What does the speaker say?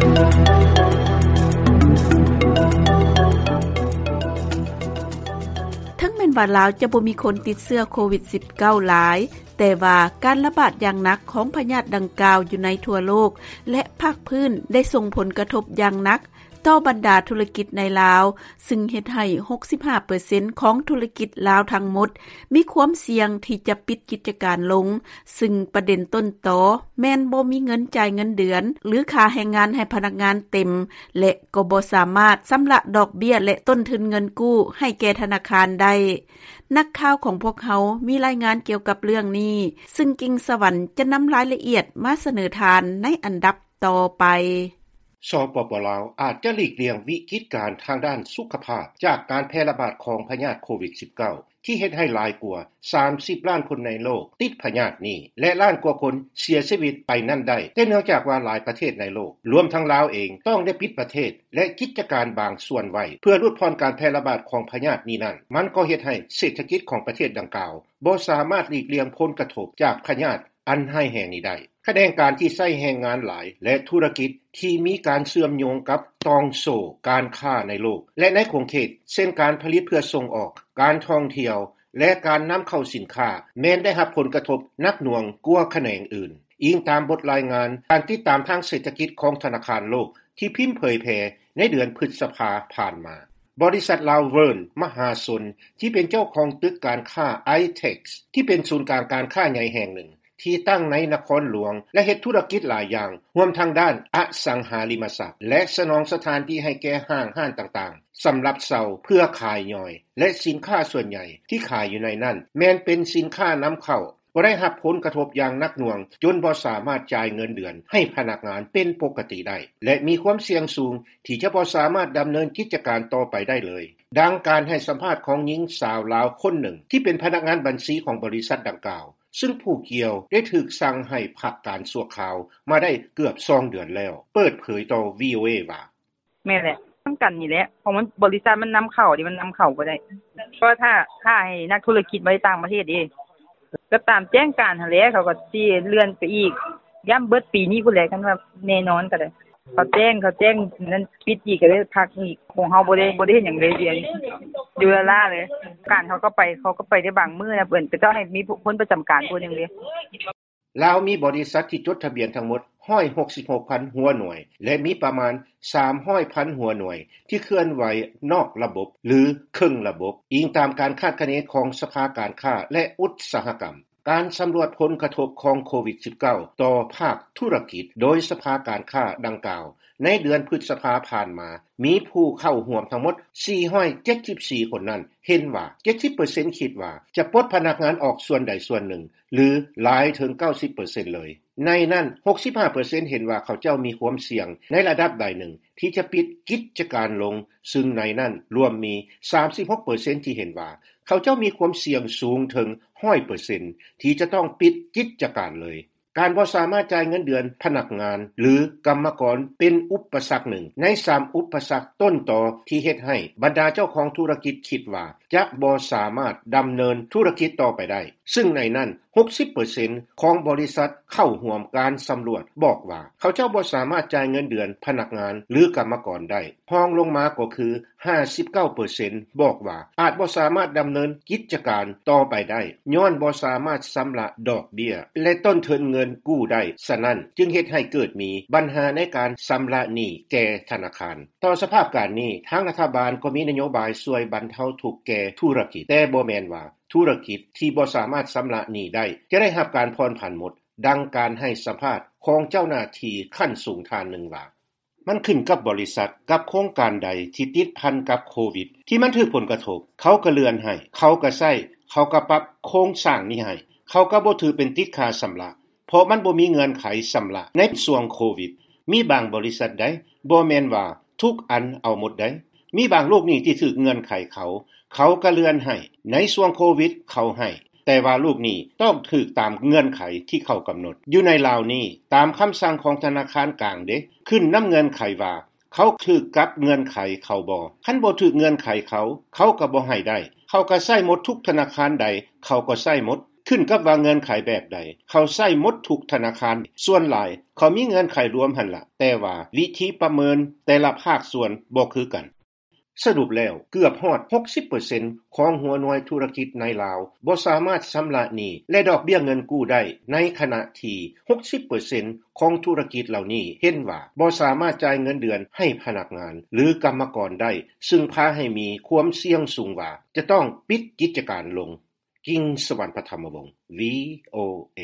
ເຖິງແມ່ນວ່າລາວຈະບໍ່ມີຄົນຕິດເຊື້ອໂຄວິດ-19 ຫຼາຍ, ແຕ່ວ່າການລະບາດຢ່າງໜັກຂອງພະຍາດດັ່ງກ່າວຢູ່ໃນທົ່ວໂລກ ແລະ ພາກພື້ນໄດ້ສົ່ງຜົນກະທົບຢ່າງໜັກຕໍ່ບັນດາທຸລະກິດໃນລາວ, ຊຶ່ງເຮັດໃຫ້ ຫົກສິບຫ້າເປີເຊັນ ຂອງທຸລະກິດລາວທັງໝົດ ມີຄວາມສ່ຽງທີ່ຈະປິດກິດຈະການລົງ, ຊຶ່ງປະເດັນຕົ້ນຕໍແມ່ນບໍ່ມີເງິນຈ່າຍເງິນເດືອນ ຫຼື ຄ່າແຮງງານໃຫ້ພະນັກງານເຕັມ ແລະ ກໍບໍ່ສາມາດຊຳລະດອກເບ້ຍ ແລະ ຕົ້ນທຶນເງິນກູ້ໃຫ້ແກ່ທະນາຄານໄດ້. ນັກຂ່າວຂອງພວກເຮົາມີລາຍງານກ່ຽວກັບເລື່ອງນີ້ ຊຶ່ງກິ່ງສະຫວັນຈະນຳລາຍລະອຽດມາສະເໜີທ່ານໃນອັນດັບຕໍ່ໄປ. ສປປ ລາວ ອາດຈະຫຼີກລ່ຽງວິກິດການທາງດ້ານສຸຂະພາບຈາກການແຜ່ລະບາດຂອງພະຍາດໂຄວິດ-19 ທີ່ເຮັດໃຫ້ຫຼາຍກວ່າ ສາມສິບລ້ານຄົນໃນໂລກຕິດພະຍາດນີ້ ແລະ ລ້ານກວ່າຄົນເສຍຊີວິດໄປນັ້ນໄດ້, ແຕ່ເນື່ອງຈາກວ່າຫຼາຍປະເທດໃນໂລກ ລວມທັງລາວເອງ ຕ້ອງໄດ້ປິດປະເທດ ແລະ ກິດຈະການບາງສ່ວນໄວ້ ເພື່ອຫຼຸດຜ່ອນການແຜ່ລະບາດຂອງພະຍາດນີ້ນັ້ນ, ມັນກໍເຮັດໃຫ້ເສດຖະກິດຂອງປະເທດດັ່ງກ່າວບໍ່ສາມາດຫຼີກລ່ຽງຜົນກະທົບຈາກພະຍາດອັນຮ້າຍແຮງນີ້ໄດ້. ຂະແໜງການທີ່ໃຊ້ແຮງງານຫຼາຍ ແລະ ທຸລະກິດທີ່ມີການເຊື່ອມໂຍງກັບຕ່ອງໂສ້ການຄ້າໃນໂລກ ແລະ ໃນຂົງເຂດ ເຊັ່ນ ການຜະລິດເພື່ອສົ່ງອອກ, ການທ່ອງທ່ຽວ ແລະ ການນຳເຂົ້າສິນຄ້າ ແມ່ນໄດ້ຮັບຜົນກະທົບໜັກໜ່ວງກວ່າຂະແໜງອື່ນ, ອີງຕາມບົດລາຍງານການຕິດຕາມທາງເສດຖະກິດຂອງທະນາຄານໂລກ ທີ່ພິມເຜີຍແຜ່ໃນເດືອນພຶດສະພາຜ່ານມາ. ບໍລິສັດລາວເວີນມະຫາຊົນ ທີ່ເປັນເຈົ້າຂອງຕຶກການຄ້າໄອເທັກ ທີ່ເປັນສູນກາງການຄ້າໃຫຍ່ແຫ່ງໜຶ່ງ ທີ່ຕັ້ງໃນນະຄອນຫຼວງ ແລະ ເຮັດທຸລະກິດຫຼາຍຢ່າງ, ຮວມທັງດ້ານອະສັງຫາລິມະຊັບ ແລະ ສະໜອງສະຖານທີ່ໃຫ້ແກ່ຫ້າງຮ້ານຕ່າງໆ ສຳລັບເຊົ່າເພື່ອຂາຍຍ່ອຍ ແລະ ສິນຄ້າສ່ວນໃຫຍ່ທີ່ຂາຍຢູ່ໃນນັ້ນ ແມ່ນເປັນສິນຄ້ານຳເຂົ້າ, ກໍໄດ້ຮັບຜົນກະທົບຢ່າງໜັກໜ່ວງ ຈົນບໍ່ສາມາດຈ່າຍເງິນເດືອນໃຫ້ພະນັກງານເປັນປົກກະຕິໄດ້ ແລະ ມີຄວາມສ່ຽງສູງທີ່ຈະບໍ່ສາມາດດຳເນີນກິດຈະການຕໍ່ໄປໄດ້ເລີຍ. ດັ່ງການໃຫ້ສຳພາດຂອງຍິງສາວລາວຄົນໜຶ່ງ ທີ່ເປັນພະນັກງານບັນຊີຂອງບໍລິສັດດັ່ງກ່າວ, ຊຶ່ງຜູ້ກ່ຽວໄດ້ຖືກສັ່ງໃຫ້ພັກການຊົ່ວຄາວມາໄດ້ເກືອບສອງເດືອນແລ້ວ ເປີດເຜີຍຕໍ່ ວີໂອເອ ວ່າ: ແມ່ນແຫຼະ ນຳກັນນີ້ແຫຼະ ເພາະມັນ ບໍລິສັດມັນນຳເຂົ້າເດ້ ມັນນຳເຂົ້າບໍ່ໄດ້ ເພາະວ່າຖ້າ ຖ້າໃຫ້ນັກທຸລະກິດມາຈາກຕ່າງປະເທດເດ້ ກໍຕາມແຈ້ງການຫັ້ນແຫຼະ ເຂົາກໍຊິເລື່ອນໄປອີກ ຢ້ຳເບິດປີນີ້ພຸ້ນແຫຼະ ຄັນວ່າແນ່ນອນກໍໄດ້ ເຂົາແຈ້ງ ເຂົາແຈ້ງນັ້ນ ປິດອີກ ກໍໄດ້ພັກອີກ ຂອງເຮົາບໍ່ໄດ້ ບໍ່ໄດ້ເຮັດຫຍັງເລີຍ ດຽວນີ້ຢູ່ລ້າໆເລີຍ ການເຂົາກໍໄປ ເຂົາກໍໄປໄດ້ບາງມື້ນະ ເພິ່ນກໍເຈົ້າໃຫ້ມີຄົນປະຈຳການຜູ້ໜຶ່ງເດ້. ລາວມີບໍລິສັດທີ່ຈົດທະບຽນທັງໝົດ ຮ້ອຍຫົກສິບຫົກພັນຫົວໜ່ວຍ ແລະ ມີປະມານ ສາມຮ້ອຍພັນຫົວໜ່ວຍ ທີ່ເຄື່ອນໄຫວນອກລະບົບ ຫຼື ເຄິ່ງລະບົບ, ອີງຕາມການຄາດຄະເນຂອງສະພາການຄ້າ ແລະ ອຸດສາຫະກຳ. ການສຳຫຼວດຜົນກະທົບຂອງໂຄວິດ-19 ຕໍ່ພາກທຸລະກິດ ໂດຍສະພາການຄ້າດັ່ງກ່າວ ໃນເດືອນພຶດສະພາຜ່ານມາ ມີຜູ້ເຂົ້າຮ່ວມທັງໝົດ ສີ່ຮ້ອຍເຈັດສິບສີ່ຄົນນັ້ນ ເຫັນວ່າ ເຈັດສິບເປີເຊັນຄິດວ່າຈະປົດພະນັກງານອອກສ່ວນໃດສ່ວນໜຶ່ງ ຫຼື ຫຼາຍເຖິງເກົ້າສິບເປີເຊັນເລີຍ. ໃນນັ້ນ ຫົກສິບຫ້າເປີເຊັນເຫັນວ່າເຂົາເຈົ້າມີຄວາມສ່ຽງໃນລະດັບໃດໜຶ່ງທີ່ຈະປິດກິດຈະການລົງ, ຊຶ່ງໃນນັ້ນລວມມີ ສາມສິບຫົກເປີເຊັນທີ່ເຫັນວ່າເຂົາເຈົ້າມີຄວາມສ່ຽງສູງເຖິງ ຮ້ອຍເປີເຊັນ ທີ່ຈະຕ້ອງປິດກິດຈະການເລີຍ. ການບໍ່ສາມາດຈ່າຍເງິນເດືອນພະນັກງານ ຫຼື ກຳມະກອນເປັນອຸປະສັກໜຶ່ງໃນສາມອຸປະສັກຕົ້ນຕໍທີ່ເຮັດໃຫ້ບັນດາເຈົ້າຂອງທຸລະກິດຄິດວ່າຈະບໍ່ສາມາດດຳເນີນທຸລະກິດຕໍ່ໄປໄດ້, ຊຶ່ງໃນນັ້ນ ຫົກສິບເປີເຊັນຂອງບໍລິສັດເຂົ້າຮ່ວມການສຳຫຼວດບອກວ່າ ເຂົາເຈົ້າບໍ່ສາມາດຈ່າຍເງິນເດືອນພະນັກງານ ຫຼື ກຳມະກອນໄດ້. ຮອງລົງມາກໍຄື ຫ້າສິບເກົ້າເປີເຊັນບອກວ່າອາດບໍ່ສາມາດດຳເນີນກິດຈະການຕໍ່ໄປໄດ້ ຍ້ອນບໍ່ສາມາດຊຳລະດອກເບ້ຍ ແລະ ຕົ້ນທຶນເງິນກູ້ໄດ້, ສະນັ້ນຈຶ່ງເຮັດໃຫ້ເກີດມີບັນຫາໃນການຊຳລະໜີ້ແກ່ທະນາຄານ. ຕໍ່ສະພາບການນີ້, ທາງລັດຖະບານກໍມີນະໂຍບາຍຊ່ວຍບັນເທົາທຸກແກ່ທຸລະກິດ, ແຕ່ບໍ່ແມ່ນວ່າທຸລະກິດທີ່ບໍ່ສາມາດຊຳລະໜີ້ໄດ້ຈະໄດ້ຮັບການຜ່ອນຜັນໝົດ, ດັ່ງການໃຫ້ສຳພາດຂອງເຈົ້າໜ້າທີ່ຂັ້ນສູງທ່ານໜຶ່ງວ່າ: ມັນຂຶ້ນກັບບໍລິສັດ ກັບໂຄງການໃດທີ່ຕິດພັນກັບໂຄວິດ ທີ່ມັນຖືກຜົນກະທົບ, ເຂົາກະເລື່ອນໃຫ້, ເຂົາກະໃຊ້, ເຂົາກະປັບໂຄງສ້າງນີ້ໃຫ້, ເຂົາກະບໍ່ຖືເປັນຕິດຄ່າຊຳລະ ເພາະມັນບໍ່ມີເງື່ອນໄຂຊຳລະໃນຊ່ວງໂຄວິດ. ມີບາງບໍລິສັດໃດ໋ ບໍ່ແມ່ນວ່າທຸກອັນເອົາໝົດໃດ໋. ມີບາງລູກໜີ້ທີ່ຖືກເງື່ອນໄຂເຂົາ, ເຂົາກະເລື່ອນໃຫ້, ໃນຊ່ວງໂຄວິດເຂົາໃຫ້, ແຕ່ວ່າລູກໜີ້ຕ້ອງຖືກຕາມເງື່ອນໄຂທີ່ເຂົາກຳນົດ. ຢູ່ໃນລາວນີ້, ຕາມຄຳສັ່ງຂອງທະນາຄານກາງເດ້, ຂຶ້ນນຳເງື່ອນໄຂວ່າເຂົາຖືກກັບເງື່ອນໄຂເຂົາບໍ່. ຄັນບໍ່ຖືກເງື່ອນໄຂເຂົາ, ເຂົາກະບໍ່ໃຫ້ໄດ້. ເຂົາກະໃຊ້ໝົດ, ທຸກທະນາຄານໃດເຂົາກໍໃຊ້ໝົດ. ຂຶ້ນກັບວ່າເງື່ອນໄຂແບບໃດ ເຂົາໃຊ້ໝົດທຸກທະນາຄານ ສ່ວນຫຼາຍເຂົາມີເງື່ອນໄຂລວມຫັ້ນລະ ແຕ່ວ່າວິທີປະເມີນແຕ່ລະພາກສ່ວນບໍ່ຄືກັນ. ສະຫຼຸບແລ້ວເກືອບຮອດ 60% ຂອງຫົວໜ່ວຍທຸລະກິດໃນລາວ ບໍ່ສາມາດຊຳລະໜີ້ ແລະດອກເບ້ຍເງິນກູ້ໄດ້ ໃນຂະນະທີ່ 60% ຂອງທຸລະກິດເຫຼົ່ານີ້ ເຫັນວ່າບໍ່ສາມາດຈ່າຍເງິນເດືອນໃຫ້ພະນັກງານ ຫຼືກຳມະກອນໄດ້ ຊຶ່ງພາໃຫ້ມີຄວາມສ່ຽງສູງວ່າ ຈະຕ້ອງປິດກິດຈະການລົງ. ກິງສະຫວັນ ພະທຳມະວົງ VOA.